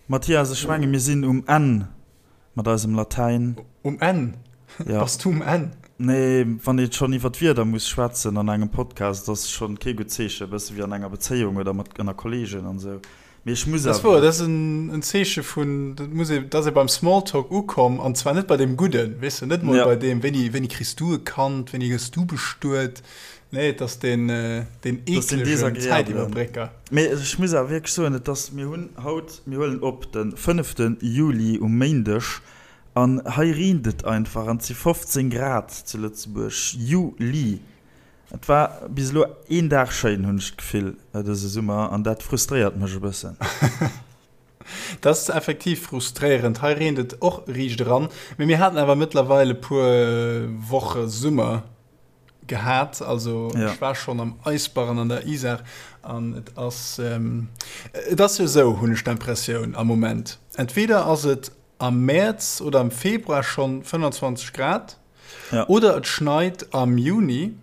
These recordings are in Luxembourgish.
Mathias, ech menge mir sinn um Enn mat eisem Latäin. Um Enn? Ja. Bass du um Enn? Nee, wann ee schonn iwwer d'Wieder muss schwätzen an engem Podcast, ass schonn kee gutt Zeechen, e bësse wéi an enger Bezéiung oder mat ënner Kolleegen an esou. Mee ech muss Dat ass awer. wouer, dat ass en Zeeche vun, dat muss ee, dat ass ee beim Smalltalk ukomm, an zwar net bei deem Gudden, weess de, net mol Ja. bei deem, wéini, wéini kriss du e Kand, wéini gëss du bestuet? Nee, et ass deen, deen Dat ass deen eeklegen desagreabelen. Zäitiwwerbrécker. Mee ech muss awer wierklech soen, et ass, mir hunn haut, mir huelen op de fënnefte Juli um Méindeg, an hei reent et einfach an et si 15 Grad zu Lëtzebuerg, Juli. Et war bis elo een Dag schéin, hunn ech d'Gefill, dëse Summer, an dat frustréiert mech e bëssen. Dat ass effektiv frustréierend. Hei reent et och riicht eran, mee mir haten awer mëttlerweil e puer Woche Summer gehat. Also ech war schonn am Eisbarren an der Isar an et ass, et ass jo esou, hunn ech d'Impressioun am Moment, entweder ass et am Mäerz oder am Februar schonn 25 Grad, Ja. Oder et schneit am Juni.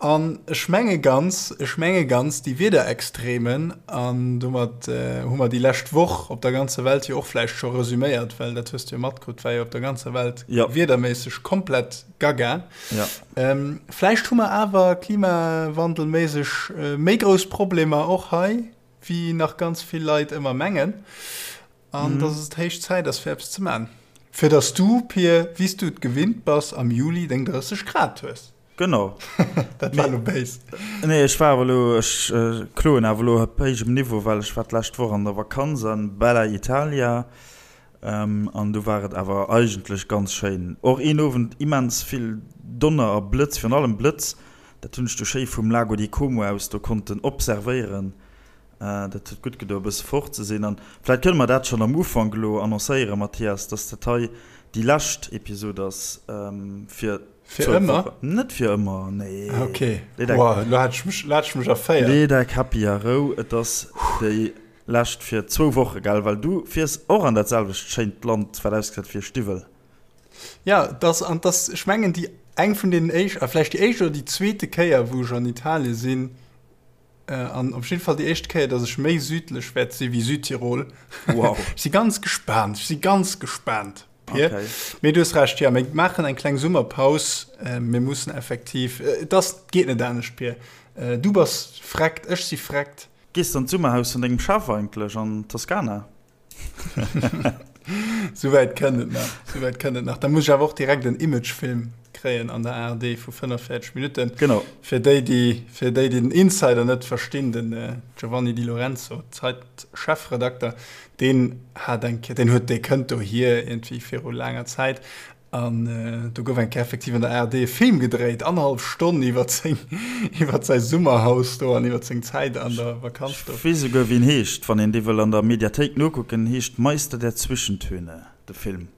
An ech menge ganz, ech menge ganz, déi Wiederextremen, an domat hu mer déi lescht Woch op der ganzer Welt jo och vläicht scho resüméiert, well dat hues du jo matkritt, war jo op der ganzer Welt ja. wiederméisseg komplett gaga. Ja. Ähm, vläicht hu mer awer klimawandelméisseg méi grouss Problemer och hei, wéi nach ganz vill Leit ëmmer mengen. An dass et héich Zäit ass, fir eppes ze man. Fir dass du, Pir, wéi s du et gewinnt bass, am Juli deng 30 Grad hues. Genau. Dat war elo béis. Nee, ech war awer elo, ech kloen awer elo op héijem Niveau, well ech war d'lescht Woch an der Vakanz an Bella Italia an do war et awer eigentlech ganz schéin. Och een Owend immens vill Donner a Blëtz, virun allem Blëtz, dat hunn ech du schéi vum Lago di Como aus do konnten observéieren. Dat huet gutt gedo, e bësse fort ze sinn. An vläicht kënne mer dat schonn am Ufank elo annoncéieren, Mathias, dass dat hei déi lescht Episod ass fir Fir ëmmer? Net fir ëmmer, nee. Ok, wow, elo hat ech mech, elo hat ech mech erféiert. Lee däi Käppi a Rou, et ass déi lescht fir zwou Woche, gell? Well du fiers och an dat selwecht schéint Land, wat ausgesäit wéi e Stiwwel. Ja, dass, an dass, ech mengen, déi eng vun deenen éischt, a vläicht déi éischt oder déi zweete Kéier, wou ech an Italie sinn, An op jidde Fall déi éischt Kéier, dass ech méi südlech wäert si wéi Südtirol. Wow. Ech si ganz gespaant, ech si ganz gespaant, Pir. Okay. Mee du hues Recht, jo, mir maachen eng kleng Summerpaus. Mir mussen effektiv, et ass, et geet net anescht, Pir. Du bass freckt, ech si freckt. Gees de an d'Summerhaus vun dengem Chef eigentlech an Toskana? Souwäit kënnt et nach, souwäit kënnt et nach. Da muss ech awer och direkt en Imagefilm kréien an der ARD vu 45 Minutten. Genau. Fir déi, déi, fir déi, déi den Insider net verstinn, den Giovanni Di Lorenzo, Zeit-Chefredakter, deen hat eng Kéier, deen huet, dee kënnt dohier iergendwéi viru laanger Zäit An do gouf eng Kéier effektiv an der ARD e Film gedréit, annerhallef Stonn iwwer seng, iwwer säi Summerhaus do an iwwer seng Zäit an der Vakanz do. Ech weess esouguer wéi en heescht, wann een dee wëll an der Mediathéik nokucken, heescht Meister der Zwischentöne, de Film.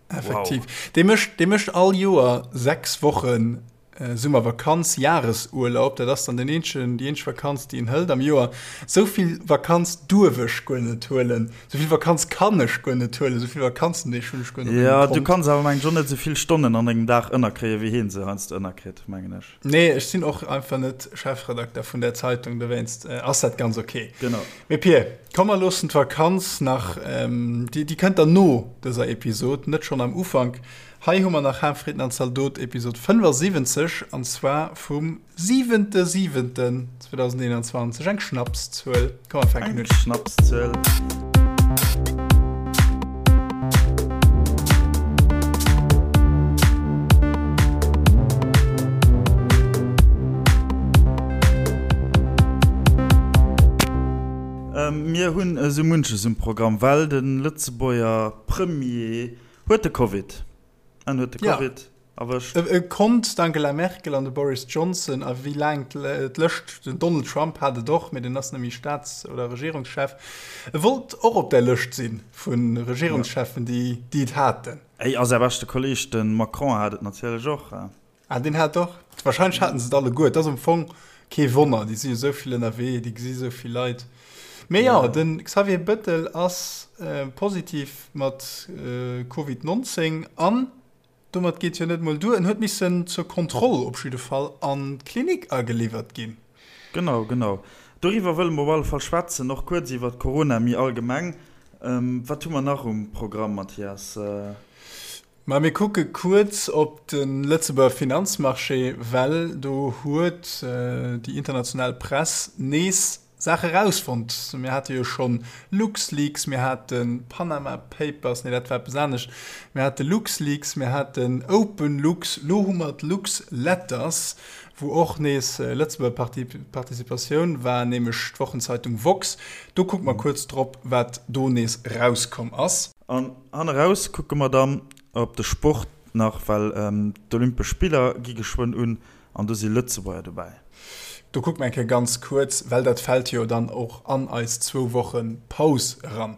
Effektiv. Dee mécht, dee mécht all Joer 6 Wochen Summervakanz, Jahresurlaub, dat ass dann den eenzegen, déi eenzeg Vakanz, déi een hëlt am Joer. Esou vill Vakanz duerf ech guer net huelen, esou vill Vakanz kann ech guer net huelen, esou vill Vakanzendeeg hunn ech guer net op mengem Jo, du Kont. kanns awer mengen ech och net esou vill Stonnen an engem Dag ënnerkréien, wéi hien se heiansdo ënnerkritt, mengen ech. Nee, ech sinn och einfach net Chefredakter vun där Zeitung, dowéinst ass dat ganz ok. Genau. Mee Pir, komm mer loossen d'Vakanz nach, déi, déi kënnt dann no dëser Episod, net schonn am Ufank. Hei hu mer nach Haarfritten an Zaldot Episod 75 an zwar vum 7.7.2021, eng Schnapszuel. Komm mer fänken Eng un. Schnapszuel. Mir hunn esou munches um Programm, well de Lëtzebuerger Premier Huet de Covid. En huet de Covid erwëscht. E konnt d'Angela Merkel an de Boris Johnson a wéi laang d'Lëscht, den Donald Trump hat et och, mee deen ass net méi Staats oder Regierungschef. E wollt och op där Lëscht si vu Regierungscheffen, déi et haten. Ey, a säi beschte Kolleeg, de Macron, hat et natierlech och. Ah, deen hat och. Wahrscheinlech haten se et alleguer. Et ass am Fong kee Wonner, déi si jo esou vill ënnerwee, déi gesi esou vill Leit. Mee jo, de Xavier Bëttel ass positiv mat Covid 19 an domat geet jo net mol duer, en huet missen zur Kontroll op jidde Fall an d'Klinik ageliwwert ginn. Genau, genau. Doriwwer wëlle mer op alle Fall schwätzen, och kuerz iwwert Corona méi allgemeng. Wat hu mer nach um Programm, Mathias? Ma mir kucke kuerz op de Lëtzebuerger Finanzmarché, well do huet déi international Press nees Saache rausfonnt. Mir hate jo schonn LuxLeaks, mir hate Panama Papers, nee dat war eppes anescht, mir hate LuxLeaks, mir haten OpenLux, lo hu mer d'LuxLetters, wou och nees Lëtzebuerger Participatioun war, nämlech d'Wochenzeitung Woxx. Do kucke mer kuerz drop, wat do nees rauskomm ass. An hanneraus kucke mer dann op de Sport nach, well d'Olympesch Spiller gi geschwënn un an do si Lëtzebuerger dobäi. Do kucke mer eng Kéier ganz kuerz, well dat fält jo dann och an eis zwou Woche Paus eran.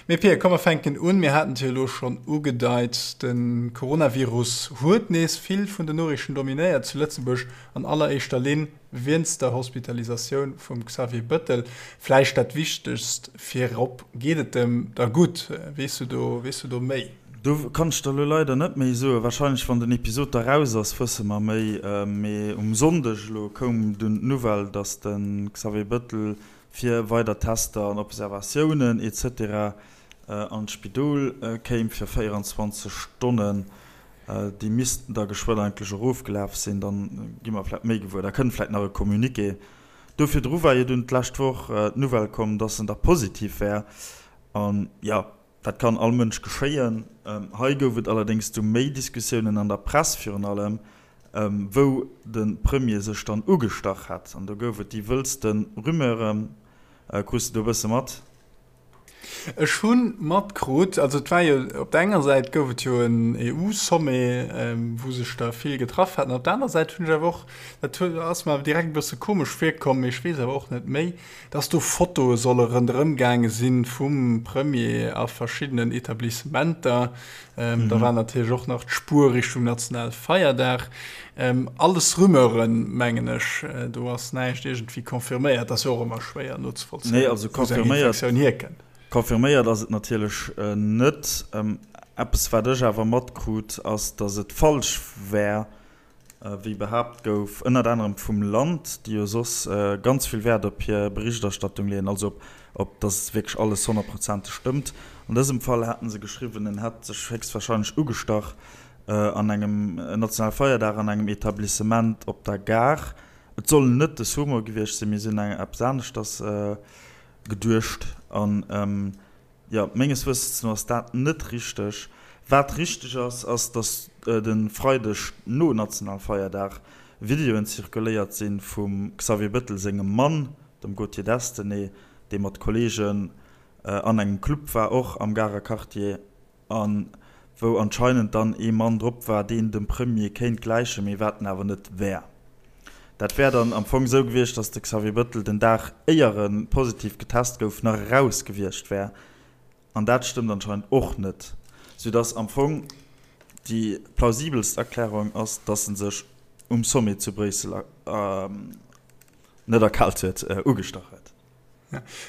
Mee Pir, komm mer fänken un. Mir haten et jo elo schonn ugedeit, de Coronavirus huet nees vill vun den Noriichten dominéiert zu Lëtzebuerg, an alleréischter Linn Wienst der Hospitalisatioun vum Xavier Bëttel, vläicht dat Wichtegst virop, Geet et em da gutt? Weess du do, weess du do méi? Do kann ech der elo leider net méi soen. Wahrscheinlech wann den Episod da raus ass, wësse mer méi. Mee um Sonndeg elo koum dunn d'Nouvelle, datt de Xavier Bëttel fir weider Tester an Observatiounen etc. An d'Spidol kéim fir 24 Stonnen. Déi missten da geschwënn eigentlech erofgelaf sinn, dann gi mer vläicht méi gewuer. Da kënnt vläicht nach e Communiqué. Do virdru war jo dunn d'lescht Woch d'Nouvelle komm, dass en da positiv wär. An jo, dat kann all Mënsch geschéien. Hei gouf et allerdéngs du méi Diskussiounen an der Press virun allem, wou de Premier sech dann ugestach hätt. An do gouf et déi wëllste Rumeuren. Krus de do e bësse mat? Ech hu matkrut, also et war jo, op der enger Säit gouf et jo en EU-Sommet, wou sech der vill getraff haten, op der aner Säit hunn ech awer och, dat ass mer awer direkt e bësse komesch virkomm, mee ech weess awer och net méi, dass do Fotoe solle ronderëm gaange si vum Premier a verschiddenen Etablissementer. Da war natierlech och nach d'Spuer Richtung Nationalfeierdag. Alles Rumeuren, mengen ech. Do ass näischt iergendwéi confirméiert. Ass jo och ëmmer schwéier nozevollzéien, Nee, also wou sou eng confirméiert, Infektioun hierkënnt. confirméiert ass et natierlech net. Eppes, wat ech awer matkrut, ass, datt et falsch wär, wéi behaapt gouf, ënnert anerem vum Land, déi jo soss ganz vill Wäert op hir Berichterstattung leeën, also op, op datt wierklech alles honnertprozenteg stëmmt. An dësem Fall haten se geschriwwen, en hätt sech héchstwahrscheinlech ugestach an engem nationale Feierdag an engem Etablissement op der Gare. Et soll net de Sumo gewiescht sinn, mee si hunn eppes aneschters geduecht. An jo, menges Wëssens no ass dat net richteg. Wat richteg ass, ass, datt de Freideg no Nationalfeierdag Videoen zirkuléiert si vum Xavier Bëttel sengem Mann, dem Gauthier Destenay, dee mat Kolleegen an engem Club war, och am Garer Quartier. A wou anscheinend dann ee Mann drop war, deen dem Premier kéint gläichen, mee wat en awer net wär. Dat wär dann am Fong esou gewiescht, datt de Xavier Bëttel den Dag éier e positiv getest gouf, nach eraus gewiescht wär. An dat stëmmt anscheinend och net, soudatt am Fong déi plausibelst Erklärung ass, datt en sech um Sommet zu Bréissel net erkaalt huet, ugestach huet.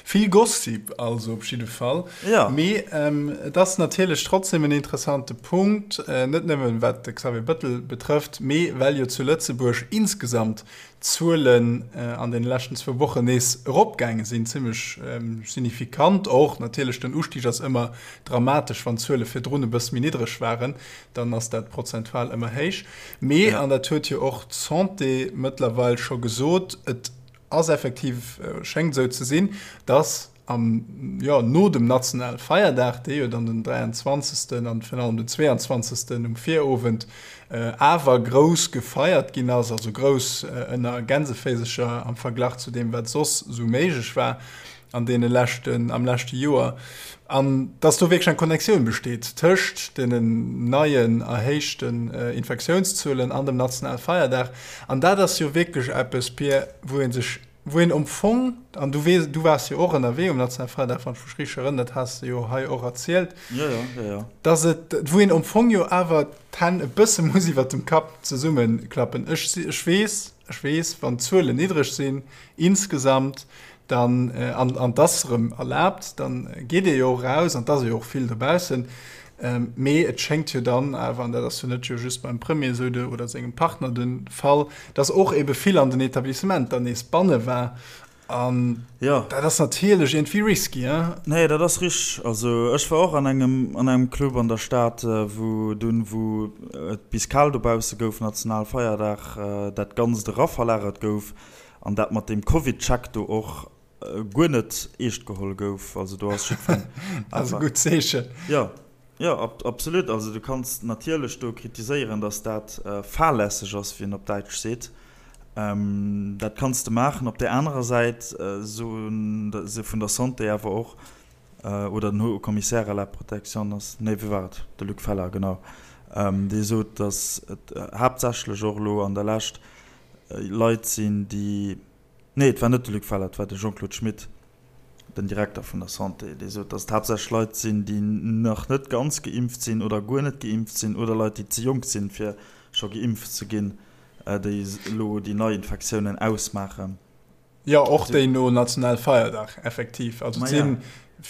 Vill Gossip also op jidde Fall. Ja. Mee et ass natierlech trotzdem en interessante Punkt, net nëmmen wat de Xavier Bëttel betrëfft, mee well jo zu Lëtzebuerg insgesamt d'Zuelen an deene leschten zwou Wochen nees eropgaange sinn, zimmlech signifikant och. Natierlech, den Ustig ass ëmmer dramatesch, wann d'Zuele virdrun e bësse méi niddreg waren, dann ass dat prozentual ëmmer héich. Mee, an dat huet jo och d'Santé mëttlerweil scho gesot, et Ass effektiv, schéngt esou ze sinn, dass am, jo, no dem nationale Feierdag, dee jo dann den 23. an virun allem den 22. um Virowend awer grouss gefeiert ginn ass, also grouss ënner Gänseféisercher am Verglach zu deem, wat soss esou méiglech war an deene leschten, am leschte Joer, an dass do wierklech eng Connectioun besteet tëscht deenen neien erhéichten Infektiounszuelen an dem nationale Feierdag. An dat ass jo wierklech eppes, Pir, wou ee sech, wou een am Fong, an du weess, du waars jo och ënnerwee um nationale Feierdag, wann ech mech richteg erënneren, dat has de jo hei och erzielt, Jo, jo, jo, jo. dass et, wou een am Fong jo awer d'Hänn e bësse muss iwwert dem Kapp zesummeklappen. Ech, ech weess, ech weess, wann d'Zuelen niddreg sinn insgesamt, dann, an, an 't ass erëm erlaabt, dann geet ee jo och eraus an 't ass ee jo och vill dobaussen. Mee et schéngt jo dann awer, an dat ass jo net jo just beim Premier esou de, oder sengem Partner de Fall, dass och ebe vill an den Etablissementer nees banne war. An ja. dat ass natierlech iergendwéi risky, hein? Nee, dat ass richteg. Also ech war och an engem, an engem Club an der Stad, wou dunn, wou et bis kal dobausse gouf, Nationalfeierdag, dat Ganzt eraverlagert gouf an dat mat deem Covid-Check do och guer net eescht geholl gouf. Also do ass jiddwereen Dat ass e gutt Zeechen. Jo, jo, absolut. Also du kanns natierlech do kritiséieren, datt dat fahrlässeg ass, wéi een op Däitsch seet. Dat kanns de maachen. Op där anerer Säit soen se vun der Santé awer och, oder den Haut Commissaire à la protection ass, nee, wie war et, de Luc Feller, genau, dee sot, datt et haaptsächlech och elo an der Lescht Leit sinn, déi, nee, et war net de Luc Feller, et war de Jean-Claude Schmit, den Direkter vun der Santé, dee sot, datt et haaptsächlech Leit sinn, déi nach net ganz geimpft sinn oder guer net geimpft sinn oder Leit, déi ze jonk sinn, fir scho geimpft ze ginn, déi elo déi Neiinfektiounen ausmaachen. Jo, och déi no Nationalfeierdag, effektiv. Also et si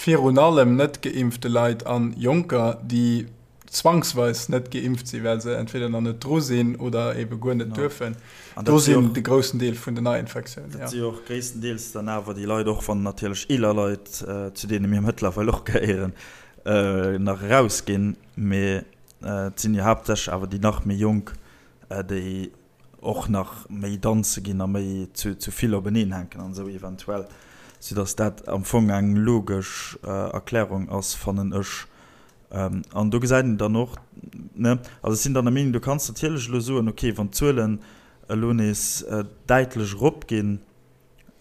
virun allem net geimpfte Leit a Jonker, déi zwangsweis net geimpft sinn, well se entweder nach net dru sinn oder ebe guer net duerfen. Do sinn de groussen Deel vun den Neiinfektiounen. Dat si jo och gréisstendeels dann awer déi Leit, och wann natierlech eeler Leit, zu deene mir mëttlerweil och gehéieren, nach erausginn, mee et sinn jo haaptsächlech awer déi nach méi Jonk, déi och nach méi danze ginn a méi zu vill openeen hänken an esou eventuell, soudass dat am Fong eng logesch Erklärung ass, fannen ech. An do gesäit een dann och, ne, also ech sinn dann der Meenung, du kanns natierlech elo soen, okay, wann d'Zuelen elo nees däitlech eropginn,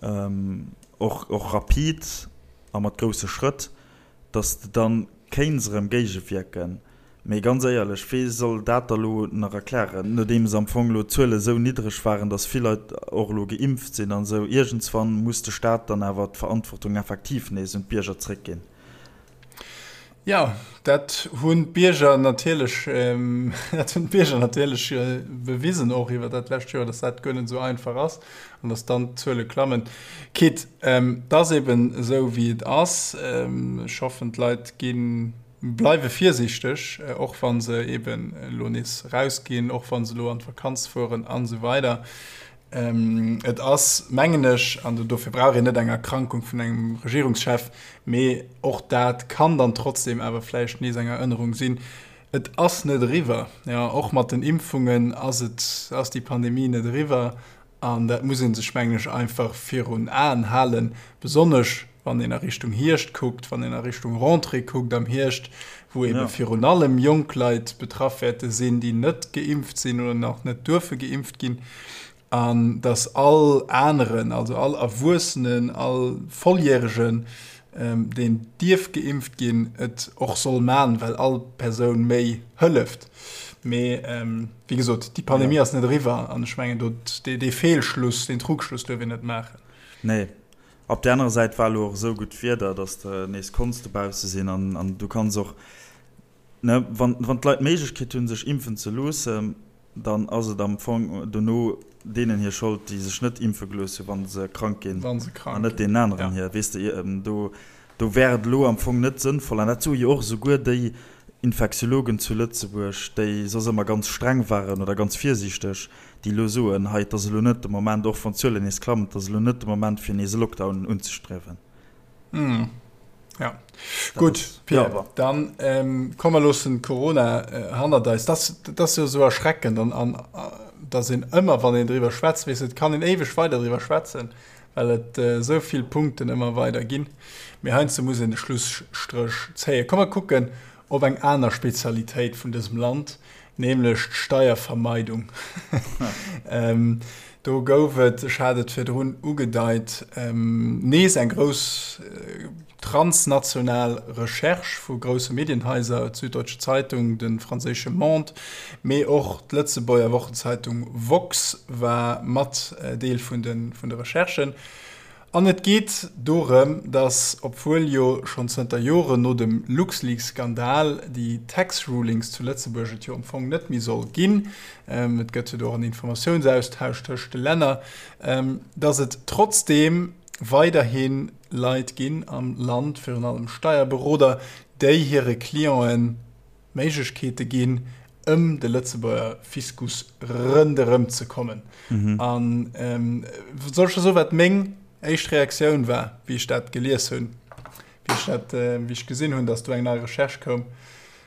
och, och rapid a mat grousse Schrëtt, datt de dann kéints erëm géigewierken. Mee ganz éierlech, wee soll dat da lo nach erklären, nodeems am Fong lo d'Zuele sou niddreg waren, datt vill Leit och elo geimpft sinn an esou. Iergendswann muss de Staat dann awer d'Verantwortung effektiv nees un d'Bierger zréckginn. Jo, dat hunn d'Bierger natierlech, dat hunn d'Bierger natierlech bewisen och iwwer dat lescht Joer, datt dat guer net esou einfach ass an datt dann d'Zuele klammen. Quitte, et ass eben esou wéi et ass. Ech hoffen, d'Leit gi bleiwe virsiichteg, och wa se eben elo nees erausginn, och wa se elo an d'Vakanz fueren an esou weider. Et ass, mengen ech, an dofir brauch een net eng Erkrankung vun engem Regierungschef, mee och dat kann dann trotzdem awer vläicht nees eng Erënnerung sinn, Et ass net eriwwer. Jo, och mat den Impfungen ass et, ass déi Pandemie net eriwwer. An dat muss ee sech, mengen ech, einfach virun Aen halen, besonnesch wann een a Richtung Hierscht kuckt, wann een a Richtung Rentrée kuckt am Hierscht, wou eebe virun allem jonk Leit betraff wäerte sinn, déi net geimpft sinn oder nach net duerfe geimpft ginn, an dass all aneren, also all Erwuessenen, all Volljäregen, deen dierf geimpft ginn, et och soll man, well all Persoun méi hëlleft. Mee wéi gesot, déi Pandemie ass net eriwwer an ech mengen, do dee Feelschluss, deen Trugschluss duerf een net maachen. Nee. Op där anerer Säit war elo och esou gutt Wieder, dass de nees konns dobausse sinn an du kanns och, ne, wann d'Leit d'Méiglechkeet hunn, sech impfen ze loossen, dann ass et am Fong dono deenen hir Schold, déi sech net impfe gelooss hunn, wa se krank ginn, an net deenen aneren hir. Weess de, do, do wär et elo am Fong net sënnvoll, an dat soe jo och esouguer déi Infektiologen zu Lëtzebuerg, déi soss ëmmer ganz streng waren oder ganz virsiichteg, déi elo soen, hei, et ass elo net de Moment, och wann d'Zuelen nees klammen, et ass elo net de Moment, fir nees e Lockdown unzestriewen. Ja, gutt, Pierre, dann komm mer loossen Corona hannert eis. Dat ass jo esou erschreckend, an datt een ëmmer, wann een driwwer schwätzt, weess, et kann een éiweg weider driwwer schwätzen, well et esou vill Punkten ëmmer weider ginn. Mee heiansdo muss een de Schlusstréch zéien. Komm mer kucken op eng aner Spezialitéit vun dësem Land, nämlech d'Steiervermeidung. Do gouf et, ech hat et virdrun ugedeit, nees eng grouss transnational Recherche vu grousse Medienhaiser, d'Süddeutsche Zeitung, de franséische Monde, mee och d'Lëtzebuerger Wochenzeitung Woxx war mat Deel vun de Recherchen. An et geet dorëm, datt, obwuel jo schonn zënter Joren no dem LuxLeaks-Skandal déi Tax Rulings zu Lëtzebuerg et jo am Fong net méi soll ginn, et gëtt jo do och en Informatiounsaustausch tëscht de Länner, datt et trotzdeem weiderhi Leit ginn am Land, virun allem Steierberoder, déi hire Clienten Méiglechkeete ginn, ëm de Lëtzebuerger Fiskus rënderëm ze kommen. An soll ech der soen, wat meng. éischt Reaktioun war, wéi ech dat gelies hunn, wéi ech dat, wéi ech gesinn hunn, dass do eng nei Recherche koum.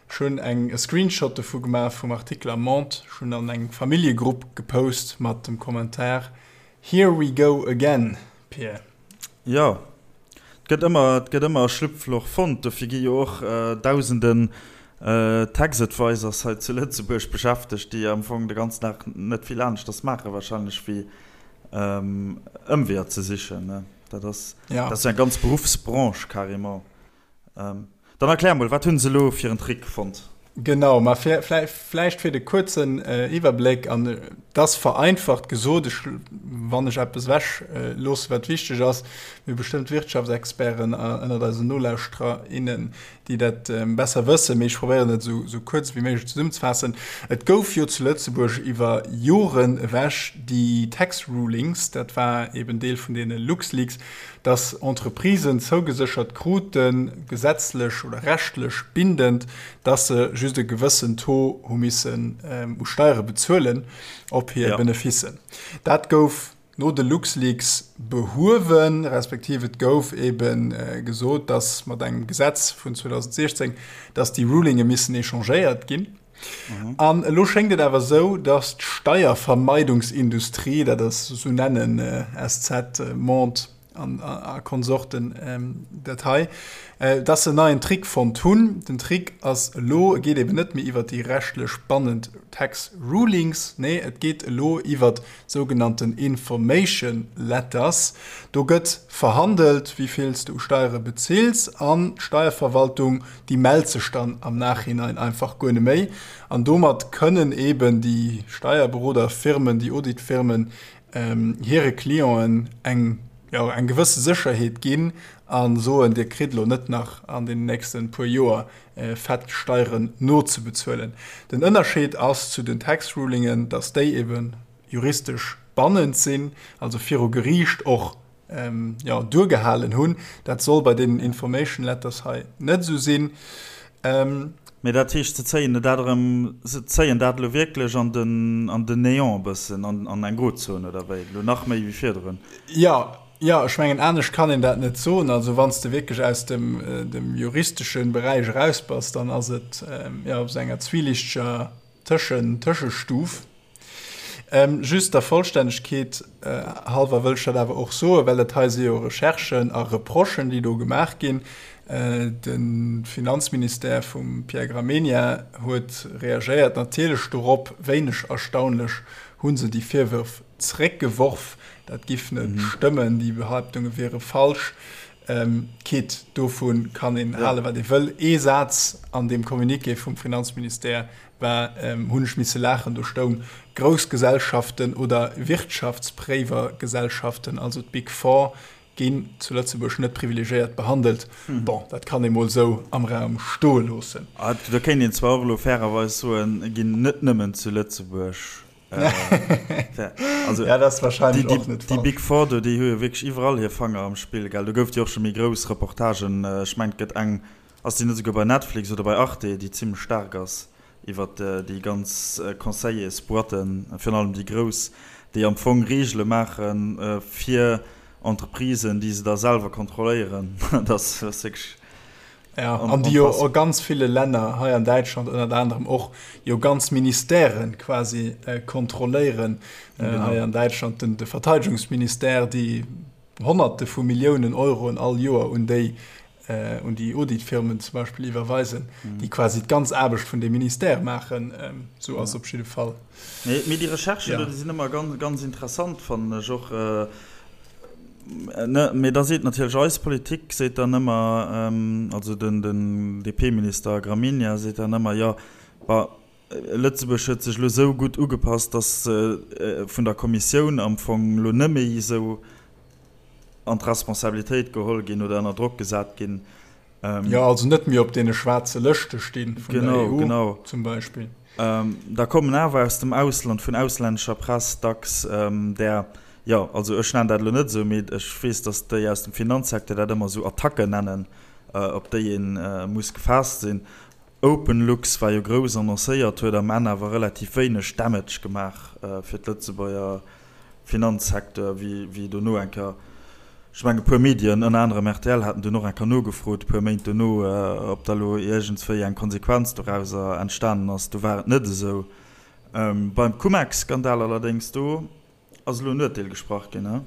Ech hunn eng e Screenshot dovu gemaach vum Artikel am Monde. Ech hunn an eng Familljegrupp gepost mat dem Kommentar, Here we go again, Pir. Jo, et gëtt ëmmer, et gëtt ëmmer e Schlupfloch fonnt. Dofir gi jo och dausenden Tax Advisors hei zu Lëtzebuerg beschäftegt, déi am Fong de ganzen Dag net vill aneschters maache wahrscheinlech wéi Ëmweeër ze sichen. Dat ass, dat ass jo eng ganz Beruffsbranche carrément. Dann erklär mol, wat hunn se elo fir en Trick fonnt? Genau, ma fir vläicht fir de kuerzen Iwwerbléck, an et ass vereinfacht gesot, ech, wann ech eppes ewech loosse wat wichteg ass, mir hu bestëmmt Wirtschaftsexperten ënnert eisen Nolauschterer, innen, déi dat besser wëssen, mee ech probéieren et esou kuerz wéi méiglech zesummzefaassen. Et gouf jo zu Lëtzebuerg iwwer Joren ewech déi Tax Rulings, dat war eben Deel vun deene LuxLeaks, dass Entreprisen zougeséchert kruten, gesetzlech oder rechtlech bindend, dass se just e gewëssen Taux hu missen u Steiere bezuelen op hir Benefissen. Dat gouf no de LuxLeaks behuewen, respektiv et gouf ebe gesot, dass mat engem Gesetz vun 2016, dass déi Rulinge missen échangéiert ginn. An elo schéngt et awer esou, datt d'Steiervermeidungsindustrie, dat ass, esou nennen SZ, Monde a Konsorten dat hei, datt se en neien Trick fonnt hunn. Den Trick ass elo, e geet eben net méi iwwert déi rechtlech bannend Tax Rulings, nee et geet elo iwwert sougenannten Information Letters. Do gëtt verhandelt, wéi vill s de u Steiere bezills an d'Steierverwaltung, déi mellt sech dann am Nachhinein einfach guer net méi. An domat kënnen eeben déi Steierberoderfirmen, déi Auditfirmen hire Clienten eng, jo, eng gewësse Sécherheet ginn a soen, Dir kritt elo net nach an den nächste puer Joer fett Steieren nozebezuelen. Den Ënnerscheed ass zu den Tax Rulingen, dass déi eben juristesch bannend sinn, also viru Geriicht och jo, duergehalen hunn. Dat soll bei deenen Information Letters hei net esou sinn. Mee dat heescht, se zéien dat erëm, se zéien dat elo wierklech an den, an den Néant e bëssen, an, an eng Grozon, oder wéi? Elo nach méi wéi virdrun? Jo, jo, ech mengen, anescht kann een dat net soen. Also wann s de wierklech aus dem, dem juristesche Beräich eraus bass, dann ass et, jo, op esou enger zwieliichteger Tëschen, Tëschestuf. Just der Vollstännegkeet hallwer wëll ech dat awer och soen, well dat hei si jo Recherchen a Reprochen, déi do gemaach ginn. De Finanzministère vum Pierre Gramegna huet reagéiert, natierlech dorop. Wéineg erstaunlech hu se déi Virwërf zréckgeworf. Dat giff net stëmmen, déi Behaaptunge wiere falsch. Quitte, dovu kann een halen, wat ee wëll. Ee Saz an deem Communiqué vum Finanzministère war, hunn ech misse laachen, do stoung, Grouss Gesellschaften oder Wirtschaftspréiwergesellschaften, also d'Big Four, ginn zu Lëtzebuerg net privilegiéiert behandelt. Bon, dat kann ee mol esou am Raum stoe loossen. Do kéint een zwar och elo fairerweis soen, ginn net nëmmen zu Lëtzebuerg. Also, ja, dat ass wahrscheinlech och net falsch. Déi Big Four do, déi hu jo wierklech iwwerall hir Fanger am Spill, gell? Do gouf et jo och scho méi grouss Reportagen. Ech mengen, et gëtt eng Ass déi net esouguer bei Netflix oder bei Arte, déi zimlech staark ass, iwwert déi ganz Conseillersboîten, virun allem déi grouss, déi am Fong Reegele maache fir Entreprisen, déi se da selwer kontrolléieren. Dat ass wierklech Ja, an déi jo a ganz ville Länner, hei an Däitschland ënnert anerem och, jo ganz Ministèren quasi kontrolléieren. Hei an Däitschland de Verteidegungsministère, déi Honnerte vu Milliounen Euroen all Joer un déi un déi Auditfirmen zum Beispill iwwerweisen, déi quasi d'ganz Aarbecht vun deem Ministère maachen. Esou ass op jidde Fall. Mee déi Recherchen do, déi sinn ëmmer ganz, ganz interessant, fannen ech och. Mee da seet natierlech eis Politik seet dann ëmmer, also den DP-Minister Gramegna seet dann ëmmer, jo, bah, Lëtzebuerg huet sech elo esou gutt ugepasst, datt se vun der Kommissioun am Fong elo net méi esou an d'Responsabilitéit geholl ginn oder ënner Drock gesat ginn. Jo, also net méi op deene schwaarze Lëschte sti vun der EU zum Beispill. Da kommen awer aus dem Ausland, vun auslännescher Press dacks där, jo, also ech nennen dat elo net esou, mee ech weess, datt déi aus dem Finanzsecteur dat ëmmer esou Attacken nennen, op déi ee muss gefaasst sinn. OpenLux war jo grouss annoncéiert, huet am Enn awer relativ wéineg Damage gemaach fir d'Lëtzebuerger Finanzsecteur, wéi dono eng Kéier. Ech mengen, e puer Medien, ënner anerem rtl, haten dunn och eng Kéier nogefrot, e puer Méint dono, ob da lo iergendswéi eng Konsequenz dorauser entstanen ass. Do war et net esou. Beim Cum-Ex-Skandal allerdéngs, do ass elo en Urteel gesprach ginn, he?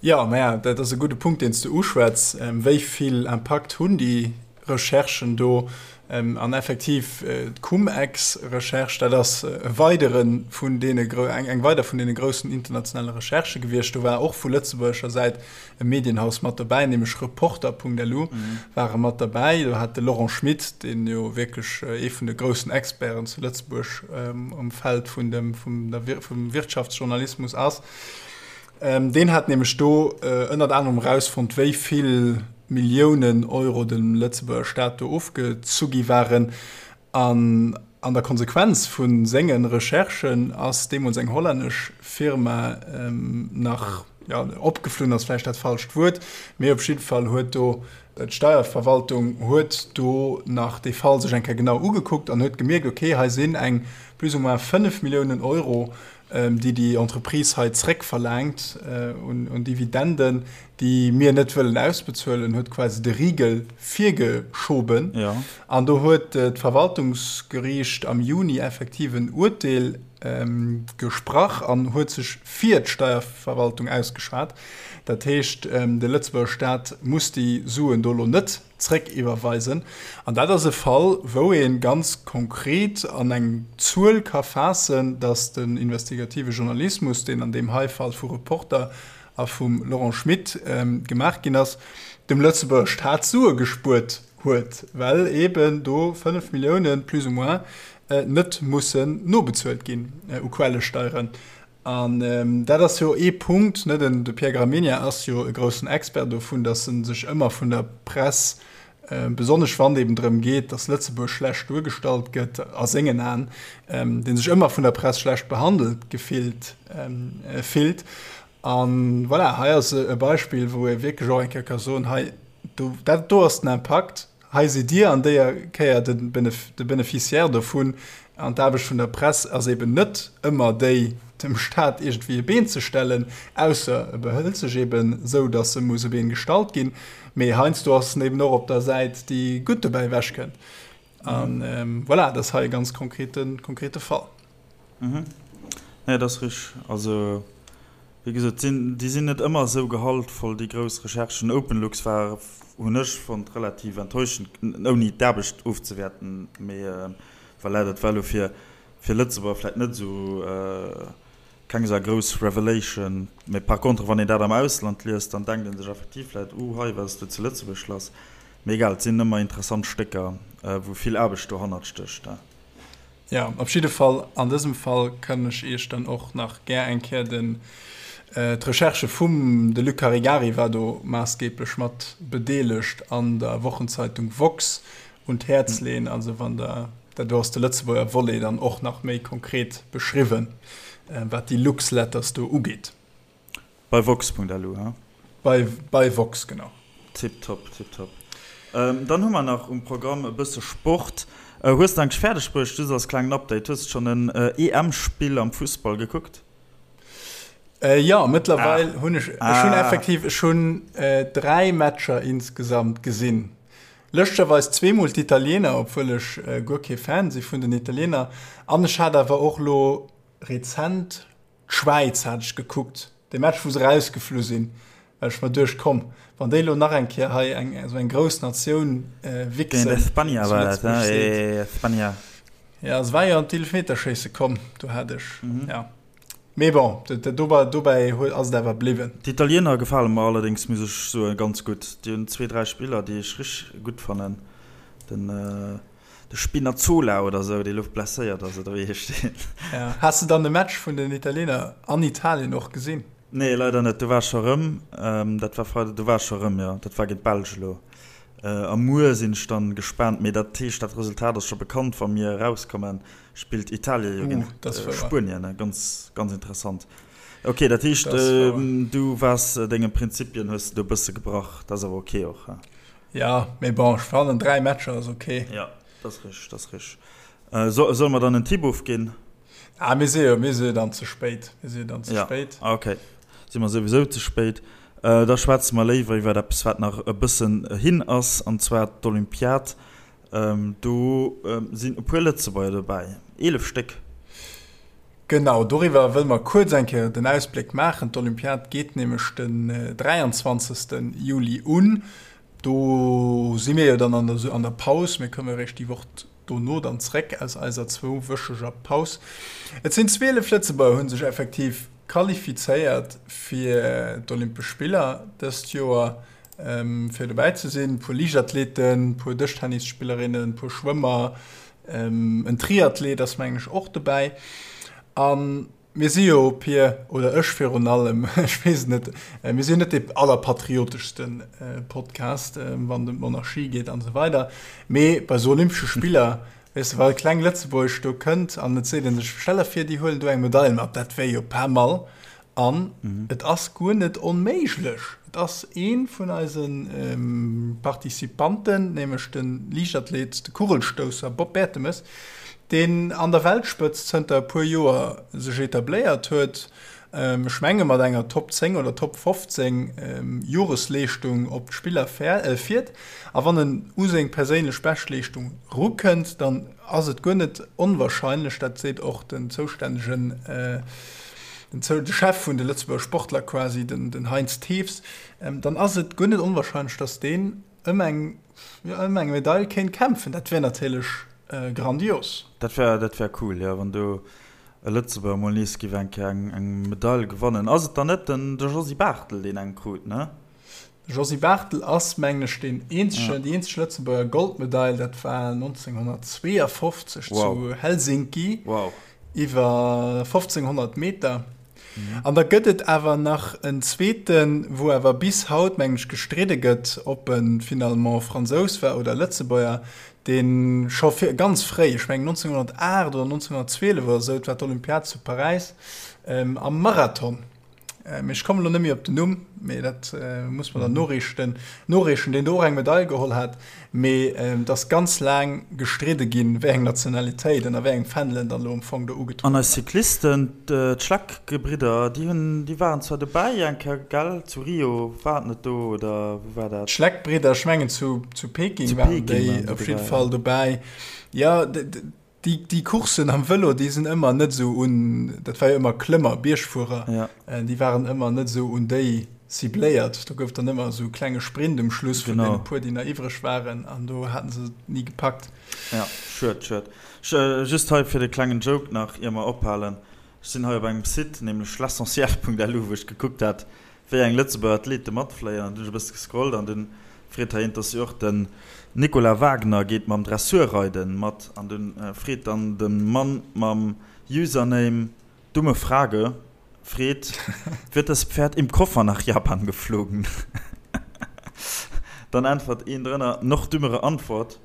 Jo, maja, dat ass e gudde Punkt, deen s de uschwätz. Wéi vill Impakt hunn déi Recherchen do? An effektiv, d'Cum-Ex-Recherche, dat ass e weidere vun deene, eng weider vun deene groussen internationale Recherchë gewiescht. Do war och vu lëtzebuergescher Säit e Medienhaus mat dobäi, nämlech Reporter.lu ware mat derbäi. Do hat de Laurent Schmit, deen jo wierklech ee vun de groussen Experten zu Lëtzebuerg um Feld vun dem, vum der, vum Wirtschaftsjournalismus ass, Deen hat nämlech do ënnert anerem erausfonnt, wéi vill Milliounen Euro dem Lëtzebuerger Staat do ofgezu gi waren. An an der Konsequenz vu senge Recherchen ass deemools eng hollännesch Firma nach, jo, opgeflunn ass vläicht dat falscht Wuert, mee op jidde Fall huet do d'Steierverwaltung huet do nach dee Fall sech eng Kéier genau ugekuckt an huet gemierkt, okay, hei sinn eng plus ou moins 5 Milliounen Euro, déi déi Entreprise hei zréckverlaangt un Dividenden, déi mir net wëllen ausbezuelen, huet quasi de Rigel virgeschoben. An do huet d'Verwaltungsgeriicht am Juni effektiv en Urteel gesprach an huet sech fir d'Steierverwaltung ausgeschwat. Dat heescht, de Lëtzebuerger Staat muss déi Suen do elo net zréckiwwerweisen. An dat ass e Fall, wou ee ganz konkret an eng Zuel ka faassen, datt den investigative Journalismus, deen an deem hei Fall vu Reporter a vum Laurent Schmit gemaach ginn ass, dem Lëtzebuerger Staat Sue gespuert huet, well eeben do 5 Milliounen plus ou moins net mussen nobezuelt ginn u Quellesteieren. An dat ass jo ee Punkt, ne, den de Pierre Gramegna ass jo e groussen Expert dovun, datt e sech ëmmer vun der Press, besonnesch wann et eben drëm geet, datt Lëtzebuerg schlecht duergestallt gëtt a sengen Aen, dee sech ëmmer vun der Press schlecht behandelt gefillt fillt. A voilà, hei ass e Beispill, wou ee wierklech och eng Kéier ka soen, hei, do, dat do ass den Impakt. Hei sidd Dir an déier Kéier de Beneficiaire dovun. An d'Aarbecht vun der Press ass eben net ëmmer déi, dem Staat iergendwéi e Been ze stellen, ausser e behëlt sech eben esou, datt e muss e Been gestallt ginn. Mee heiansdo ass en eben och op der Säit, déi gutt dobäi ewechkënnt. A voilà, dat ass hei e ganz konkrete Fall. Mhm. Nee, dat ass richteg. Also, wéi gesot, sinn, déi sinn net ëmmer esou gehaltvoll, déi grouss Recherchen. Openlux war, hunn ech fonnt, relativ enttäuschend, ouni d'Aarbecht ofzewäerten, mee voilà, dat war elo fir, fir Lëtzebuerger vläicht net esou, keng esou grouss Revelation. Mee par contre, wann een dat am Ausland liest, dann denkt ee sech effektiv vläicht, Uh, hei, wat ass do zu Lëtzebuerg lass? Mee egal, et sinn ëmmer interessant Stécker, wou vill Aarbecht dohannert stécht. Jo, op jidde Fall, an dësem Fall kann ech Iech dann och nach gär eng Kéier den, d'Recherche vum, de Luc Caregari war do maassgeeblech mat bedeelegt, an der Wochenzeitung woxx un d'Häerz leeën. Also wann Der, dat do ass de Lëtzebuerger Volet dann och nach méi konkret beschriwwen, wat déi Luxletters do ugeet. Bei woxx.lu, he? Bei, bei woxx, genau. Tiptop, tiptop. Dann hu mer nach um Programm e bësse Sport. Hues de eigentlech fäerdeg bruecht, just als klengen Update, hues de schonn en EM-Spill am Fussball gekuckt? Jo, mëttlerweil hunn ech, ech hunn effektiv, ech hunn 3 Matcher insgesamt gesinn. Lëschtgerweis zweemol d'Italiener, obwuel ech guer kee Fan si vun den Italiener. An ech hat awer och lo rezent D'Schwäiz hat ech gekuckt, dee Match wou se rausgeflu sinn, well ech mer duecht, komm, wann déi elo nach eng Kéier hei eng esou eng grouss Natioun wichsen, Géint Espagna war dat, he? Espagna. Ja, se war jo an d'Eelfmeterschéisse komm, do hat ech, ja. Mee bon, dobäi ass et awer bliwwen. D'Italiener gefale mer allerdéngs, muss ech soen, ganz gutt. Déi hunn zwee, dräi Spiller, déi ech richteg gutt fannen. Den. De Spinazzola oder sou, dee lo blesséiert ass, oder wéi heescht deen? Ja. Has de dann de Match vun den Italiener an Italien och gesinn? Nee, leider net. Do war ech scho rëm. Dat war Freide, do war ech scho rëm, jo. Dat war géint d'Belsch elo. A muer sinn ech dann gespaant. Mee dat heescht, dat Resultat ass scho bekannt, wa mir erauskommen, spillt Italien jo géint Spuenien. Ganz, ganz interessant. Ok, dat heescht, du waars denge Prinzipien, hues de do e bësse gebrach. Dat ass awer ok och, he? Ja, mee bon, ech fannen 3 Matcher ass ok. Ja, dat ass richteg, dat ass richteg. So, solle mer dann en Tipp ofginn? Ah, mir si jo, mir si jo dann ze spéit. Mir si jo dann ze ja. spéit. Ah, ok. Si mer souwisou ze spéit. Da schwätze mer léiwer iwwer eppes, wat nach e bëssen hin ass, an zwar d'Olympiad. Do sinn e puer Lëtzebuerger dobäi, 11 Stéck. Genau, doriwwer wëlle mer kuerz eng Kéier den Ausbléck maachen. D'Olympiad geet nämlech den 23. Juli un. Do si mir jo dann an der Paus. Mir komme eréischt déi Woch dono dann zréck aus eiser zwouwöcheger Paus. Et sinn 12 Lëtzebuerger hu sech effektiv qualifizéiert fir d'Olympesch Spiller dëst Joer, fir dobäi ze sinn. E puer Liichtathleten, e puer Dëschtennisspillerinnen, e puer Schwëmmer, en Triathlet ass mengen ech och dobäi. A mir si jo, Pir, oder ech virun allem, ech weess et net, mir si jo net dee allerpatrioteschste Podcast, wann et ëm d'Monarchie geet an esou weider, mee bei esou Olympesche Spiller, weess de, wa kleng Lëtzebuerg do kënnt an et seet ee sech, stell der vir, déi huelen do eng Medail mat, dat wär jo pas mal. An et ass guer net onméiglech. Et ass ee vun eise Participanten, nämlech de Liichtathlet, de Kugelstousser Bob Bertemes, deen an der Weltspëtzt zënter e puer Joer sech etabléiert huet, ech menge mat enger Top 10 oder Top 15 Joresleeschtung op d'Spiller fiert. A wann en u seng perséinlech Beschtleeschtung rukënnt, dann ass et guer net onwahrscheinlech, dat seet och den zoustännegen, den Chef vun de Lëtzebuerger Sportler quasi, den Heinz Thews, dann ass et guer net onwahrscheinlech, datt deen ëm eng, jo, ëm eng Medail kéint kämpfen. Dat wär natierlech grandios. Dat wär, dat wär cool, jo, wann do e Lëtzebuerger mol nees géif eng Kéier eng Medail gewannen. Ass et dann net den, de Josy Barthel, deen eng krut, ne? De Josy Barthel ass, mengen ech, deen eenzegen, déi eenzeg Lëtzebuerger Goldmedail, dat war 1952 zu Helsinki iwwer 1500 Meter. An da gëtt et awer nach en zweeten, wou awer bis haut, mengen ech, gestridde gëtt, ob e finalement Fransous war oder Lëtzebuerger, dee scho vir, ganz fréi, ech mengen 1908 oder 1912 oder esou, et war d'Olympiad zu Paräis, am Marathon Mee ech kommen elo net méi op den Numm, mee dat muss mer dann noreechten, noreechen, deen do och eng Medail geholl hat. Mee et ass ganz laang gestridde ginn, wéi eng Nationalitéit ënner wéi engem Fändel en dann elo am Fong do ugetrueden An eis war. Cyclisten, d'Schleck-Gebridder, déi hunn, déi waren zwar dobäi eng Kéier, gell, zu Rio, war et net do oder wou war dat? D'Schleck-Bridder, ech mengen zu, zu Peking Zu waren Peking déi waren déi op jidde dobäi, Fall ja. dobäi. Jo, Déi, déi Courssen am Vëlo, déi sinn ëmmer net esou un, dat war jo ëmmer Klëmmer, Biergfuerer, ja. déi waren ëmmer net esou un déi cibléiert. Do gouf dann ëmmer esou e klenge Sprint um Schluss vun deene puer, déi nach iwwreg waren, an do haten se et ni gepackt. Ja, schued, schued. Just hei fir de klengen Joke nach, ier mer ophalen, Ech sinn hei op engem Site, nämlech l'essentiel.lu, wou ech gekuckt hat, wéi eng Lëtzebuerger Athlete matfléien an dunn ech e bësse gescrollt an dunn freet hei een, dass jo och den Nicolas Wagner geet mam Dressurreiden mat an dunn freet dann de Mann mam Username Dumme Frage freet, Wird das Pferd im Koffer nach Japan geflogen? Dann äntwert een drënner, Noch dümmere Antwort,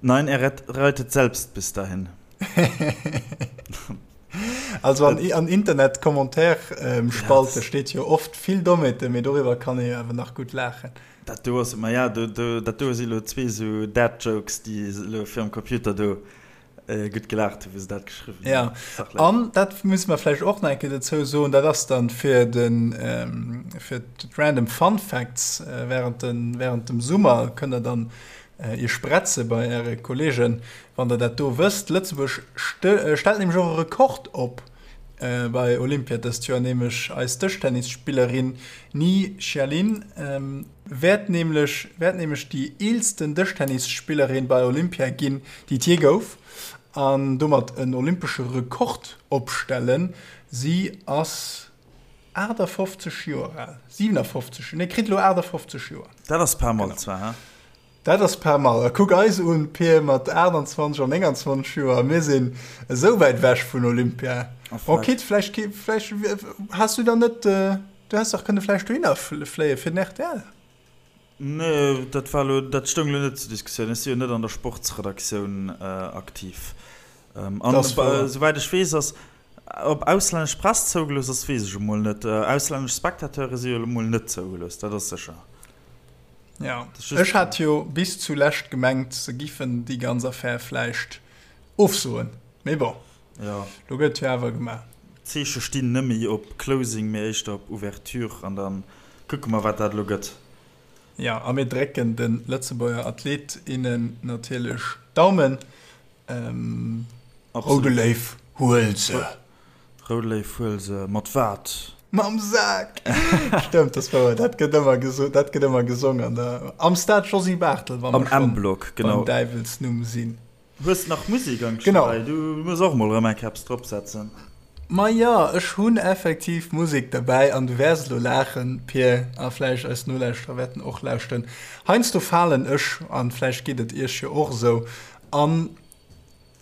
Nein, er reitet selbst bis dahin. Also an, an Internet-Commentaire-Spalte steet jo oft vill Dommheeten, mee doriwwer kann ee jo awer nach gutt laachen. Dat do ass, ma ja, do, do, dat do si lo zwee sou Dad-Jokes, déi elo virum Computer do gutt gelaacht hunn, wou se dat geschriwwen hunn. Ja, an dat musse mer vläicht och nach eng Kéier dozou soen, dat ass dann fir den, fir d'Random Fun Facts während den, während dem Summer kënnt der dann Iech bretze bei Äre Kollegen, wann Der dat do wësst. Lëtzebuerg stellt nämlech och e Rekord op bei Olympia dëst Joer, nämlech eis Dëschtennisspillerin Ni Xialin wäert nämlech wäert nämlech déi eelsten Dëschtennisspillerin bei Olympia ginn, déi et jee gouf, an domat en olympesche Rekord opstellen. Si ass 58 Joer al, 57, nee kritt elo 58 Joer. Dat ass pas mal zwar, he? Dat ass pas mal. A kuck eis un, Pir, mat 28 an 29 Joer, mir sinn esou wäit ewech vun Olympia. Bon, quitte, vläicht, vläicht has du dann net, du häss dach kënne vläicht dohinner fléie fir den rtl. Nee, dat war elo, dat stoung elo net zur Diskussioun. Ech si jo net an der Sportsredaktioun aktiv. An esouwäit ech weess, ass, ob auslännesch Press zougelooss ass, weess ech emol net. Auslännesch Spectateure si jo elo mol net zougelooss, dat ass sécher. Ja, ech hat jo bis zulescht gemengt, se giffen déi ganz Affär vläicht ofsoen, mee bon, jo, lo gëtt jo awer gemaach. D'Zeeche stinn net méi op Closing, mee éischter op Ouverture an da. Kucke mer, wat dat elo gëtt. Jo, a mir drécken de Lëtzebuerger Athlet, innen natierlech d'Daumen. Roude Léiw, huel se! Roude Léiw, huel se! Mat wat? Mam Sak! Stëmmt, dat ass wouer. Dat gëtt ëmmer gesot, dat gëtt ëmmer gesong an der, am Stade Josy Barthel, wa mer schonn beim Däiwelsnumm sinn. Hues nach Musek am Genau. Dobäi? Du muss och mol erëm eng Keps drop setzen. Ma jo, ech hunn effektiv Musek derbäi an du wäers elo laachen, Pir, a vläicht eis Nolauschterer wäerten och lauschten. Heiansdo falen ech, an vläicht geet et iech jo och esou, an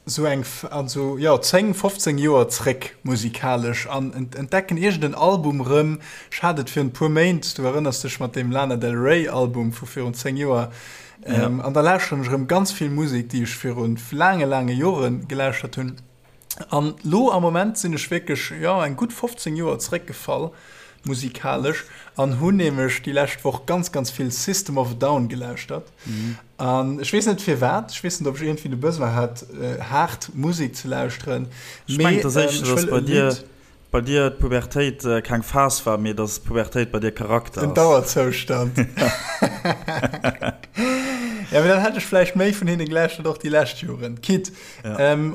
esou eng, an esou, jo, 10, 15 Joer zréck musikalesch an entdecken iergend en Album rëm. Ech hat et virun e puer Méint, du erënners dech, mat deem Lana Del Rey Album vu virun 10 Joer, Ja. Ähm, an da lauschteren ech erëm ganz vill Musek, déi ech virun laange, laange Jore gelauschtert hunn. An lo am Moment sinn ech wierklech, jo, eng gutt 15 Joer zeréckgefall, musikalesch, an hunn nämlech déi lescht Woch ganz, ganz vill System of a Down gelauschtert. Mhm. An ech weess net firwat, ech weess net, ob ech iergendwéi de Besoin hat, äh, haart Musek ze lauschteren. Ech mengen, dass éischter, dass bei dir Bei dir d'Pubertéit keng Phas war, mee dass d'Pubertéit bei dir Charakter ass. En Dauerzoustand. Ja, mee dann hätt ech vläicht méi vun hinne gelauschtert, och déi lescht Joren. Quitte,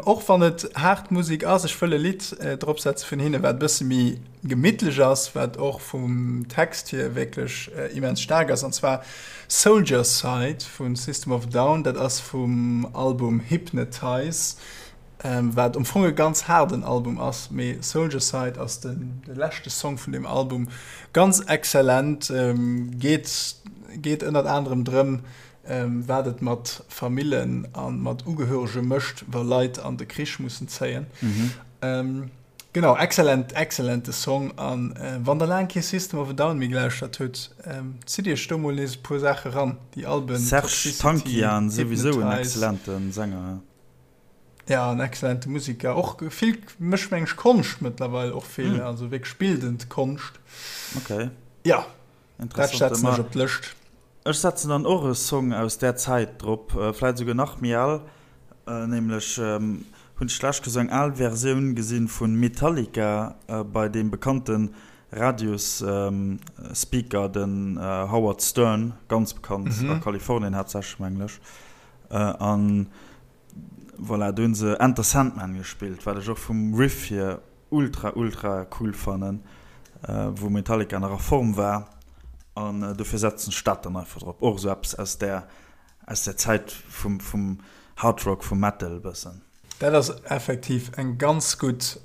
och wann et haart Musek ass, ech wëll e Lidd dropsetze vun hinne, wat e bësse méi gemittlech ass, wat och vum Text hier wierklech immens staark ass, an zwar Soldier Side vu System of a Down. Dat ass vum Album Hypnotize. Wat am Fong e ganz haarden Album ass, mee Soldier Side ass de leschte Song vun deem Album. Ganz exzellent, geet geet ënnert anerem drëm, wat et mat Famillen a mat Ugehörege mécht, wa Leit an de Krich mussen zéien. Genau, exzellent, exzellente Song. A wann der laang kee System of a Down méi gelauschtert hutt, zitt iech do mol nees e puer Saache ran, déi Alben Serj Toxicity, Tankian, souwisou en Hypnotize. exzellente Sänger. Ja, en excellente Musiker. Och vill, mécht meng ech Konscht mëttlerweil och vill, mm. also wierklech bildend Konscht. Okay. Ja, dat setzen ech op d'Lëscht. Ech setzen dann och e Song aus där Zäit drop, äh, vläit esouguer nach méi al, äh, nämlech ähm, hunn ech d'lescht Kéier sou eng al Versioun gesinn vu Metallica äh, bei deem bekannte Radios-Speaker, ähm, den äh, Howard Stern, ganz bekannt mhm. a Kalifornien haaptsächlech, mengen ech. Äh, an Voilà, do hunn se Enter Sandman gespillt, wat ech och vum Riff hier ultra ultra cool fannen, wou Metallica nach a Form war an dofir setzen ech dat dann einfach drop. Och esou eppes aus där aus där Zäit vum vum Hard Rock, vum Metal e bëssen. Dat ass effektiv eng ganz gutt,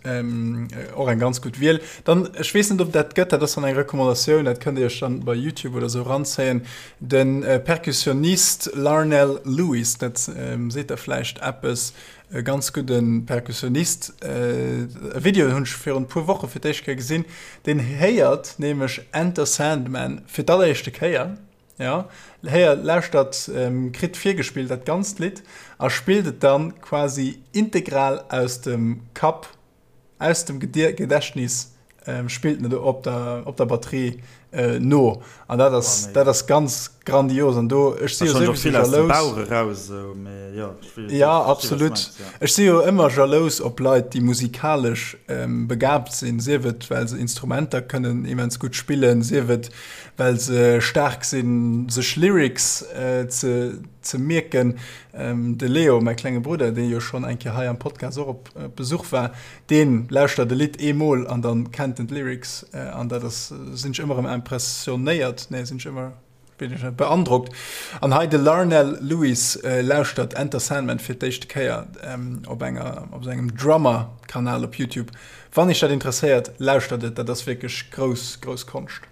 och eng ganz gutt Wiel. Dann, ech weess net ob dat gëtt, dat ass dann eng Recommandatioun, dat kënnt Dir Iech dann bei YouTube oder esou eranzéien, De Perkussionist Larnell Lewis, dat seet der vläicht eppes, e ganz gudde Perkussionist, e Video hunn ech virun e puer Woche fir d'éischt Kéier gesinn, deen héiert nämlech Enter Sandman fir d'alleréischte Kéier, jo, héiert, lauschtert, kritt virgespillt dat ganzt Lidd a spillt et dann quasi integral aus dem Kapp. Aus dem Gedächtnis spillt en et op der, op der Batterie no. An dat ass, dat ass ganz grandios. An do, ech si jo souwisou jalous. Bauch eraus, esou, mee jo, ech weess, ja, absolut. Ech si jo ëmmer jalous op Leit, déi musikalesch begabt sinn, sief et, well se Instrumenter kënnen immens gutt spillen, sief et, well se staark sinn, sech Lyrics ze, ze mierken. De Leo, mäi klenge Brudder, dee jo schonn eng Kéier hei am Podcast och op Besuch war, dee lauschtert e Lidd eemol an dann kennt en d'Lyrics an dat ass, sinn ech ëmmer erëm impressionéiert, nee sinn ech ëmmer, weess ech net, beandrockt. An hei de Larnell Lewis lauschtert Enter Sandman fir d'éischte Kéier op enger, op sengem Drummer-Kanal op YouTube. Wann iech dat interesséiert, lauschtert et, dat ass wierklech grouss, grouss Konscht.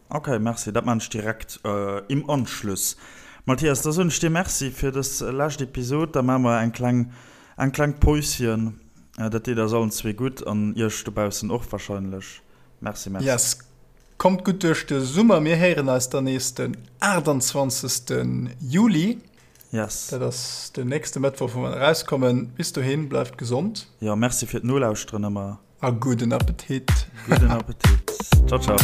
Ok, merci, dat maan ech direkt im Anschluss. Mathias, da soen ech dir Merci fir dës lescht Episod. Da maache mer eng kleng, eng kleng Päuschen. Dat deet eis allen zwee gutt an iech dobaussen och wahrscheinlech. Merci, merci. Yes, kommt gutt duerch de Summer. Mir héieren eis dann nees den 28. Juli. Yes. Dat ass den nächste Mëttwoch, wou mer erauskommen. Bis dohin, bleift gesond. Jo, merci fir d'Nolauschteren ëmmer. A gudden Appetit. Gudden Appetit. Ciao, ciao.